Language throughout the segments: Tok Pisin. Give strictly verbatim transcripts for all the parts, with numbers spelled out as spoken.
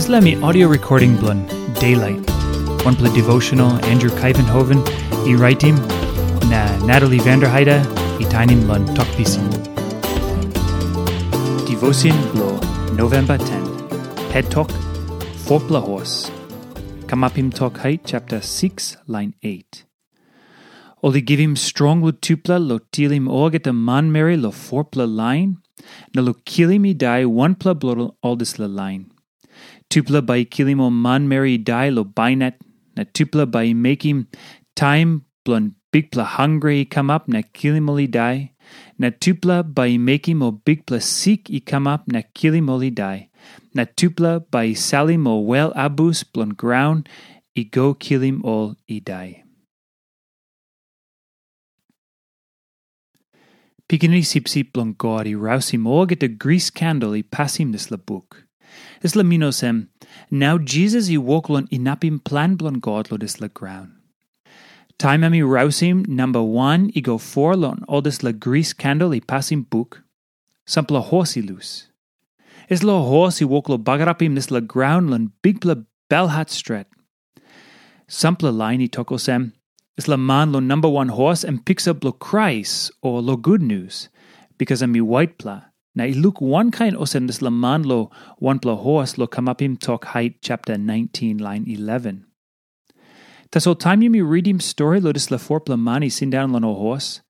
Dispela mi audio recording bilong Daylight, wanpela devotional Andrew Kaivenhoven i raitim, na Natalie Vanderheide i tainim long Tok Pisin. Devotion bilong November ten, het tok, Fopla Hos. Kamapim Tok Hait chapter six, line eight. Ol i givim strong long tupela long tilim olgeta manmeri long fopela lain, na long kilim i dai wanpela bilong ol dispela lain. Tupela bai i kilim ol manmeri i dai long bainat, na tupela bai i mekim taim bilong bikpela hangre i kamap na kilim ol i dai, na tupela bai i mekim ol bikpela sik i kamap na kilim ol i dai, na tupela bai i salim ol wel abus bilong graun i go kilim ol i dai. Pikinini Sipsip bilong God i rausim olgeta gris kandel i pasim dispela buk. Dispela min olsem, nau Jisas i wok long inapim plan bilong God long dispela graun. Taim em i rausim namba wan i go foa long ol dispela gris kandel i pasim buk, sampela hos i lus. Dispela hos i wok long bagarapim dispela graun long bikpela belhat stret. Sampela lain i tok olsem, dispela man long namba wan hos em piksa bilong Krais o long gutnius, bikas em i waitpela, na i luk wankain olsem dispela man long wanpela hos long Kamapim Tok Hait chapter nineteen, lain eleven. Tasol taim yumi ritim stori long dispela fopela man i sindaun long ol hos,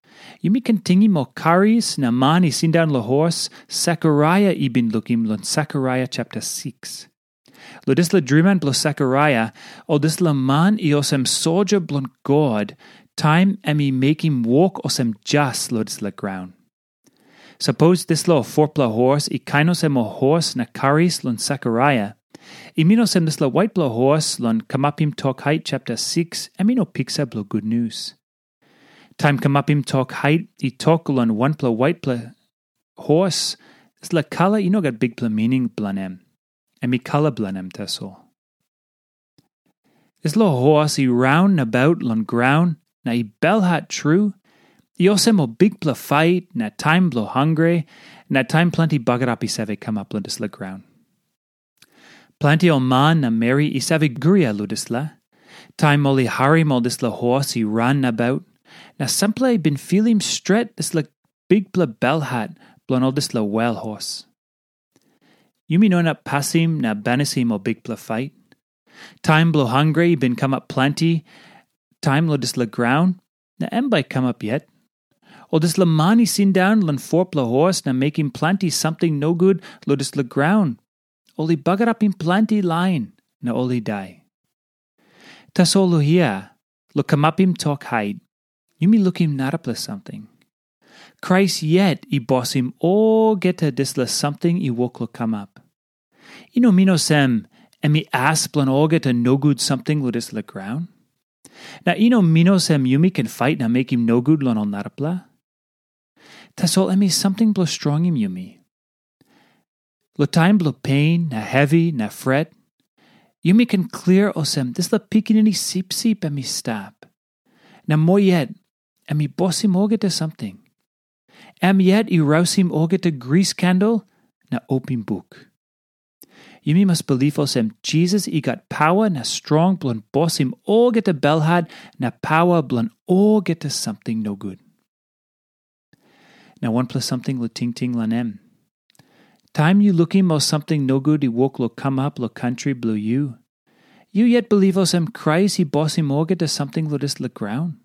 yumi ken tingim ol karis na man i sindaun long hos Sekaraia i bin lukim long Sekaraia chapter six. Long dispela driman bilong Sekaraia, ol dispela man i olsem soldia bilong God, taim em i mekim wok olsem jas long dispela graun. Sapos dispela fopela hos i kain olsem ol hos na karis long Sekaraia, i min olsem dispela waitpela hos long Kamapim Tok Hait chapter six, em i no piksa bilong gutnius. Taim Kamapim Tok Hait i tok long wanpela waitpela hos, dispela kala i no gat bikpela mining bilong em. Em i kala bilong em tasol. Dispela hos i raun nabaut long graun na i belhat tru, i olsem ol bikpela fait na taim bilong hangre, na taim planti bagarap i save kamap long dispela graun. Planti ol man na meri i save guria long dispela. Taim ol i harim ol dispela hos i ran nabaut, na sampela i bin filim stret dispela bikpela belhat bilong ol dispela wel hos. Yumi no inap pasim na banisim ol bikpela fait. Taim bilong hangre i bin kamap planti taim long dispela graun, na em bai i kamap yet. Ol dispela man i sindaun long fopela hos na mekim planti samting nogut long dispela graun, ol i bagarapim planti lain na ol i dai. Tasol long hia, long Kamapim Tok Hait, yumi lukim narapela samting. Krais yet i bosim olgeta dispela samting i wok long kamap. I no min olsem em i as bilong olgeta nogut samting long dispela graun. Na i no min olsem yumi ken fait na mekim nogut long ol narapela. Tasol em i samting bilong strongim yumi. Long taim bilong pen na hevi na fret, yumi ken klia olsem dispela pikinini sipsip em i stap. Na moa yet, em i bosim olgeta samting. Em yet i rausim olgeta gris kandel na opim buk. Yumi mas bilip olsem Jisas i gat paua na strong bilong bosim olgeta belhat na paua bilong olgeta samting nogut. Na wanpela samting long tingting long em. Taim yu lukim ol samting nogut i wok long kamap long kantri bilong yu, yu yet bilip olsem Krais i bosim olgeta samting long dispela graun?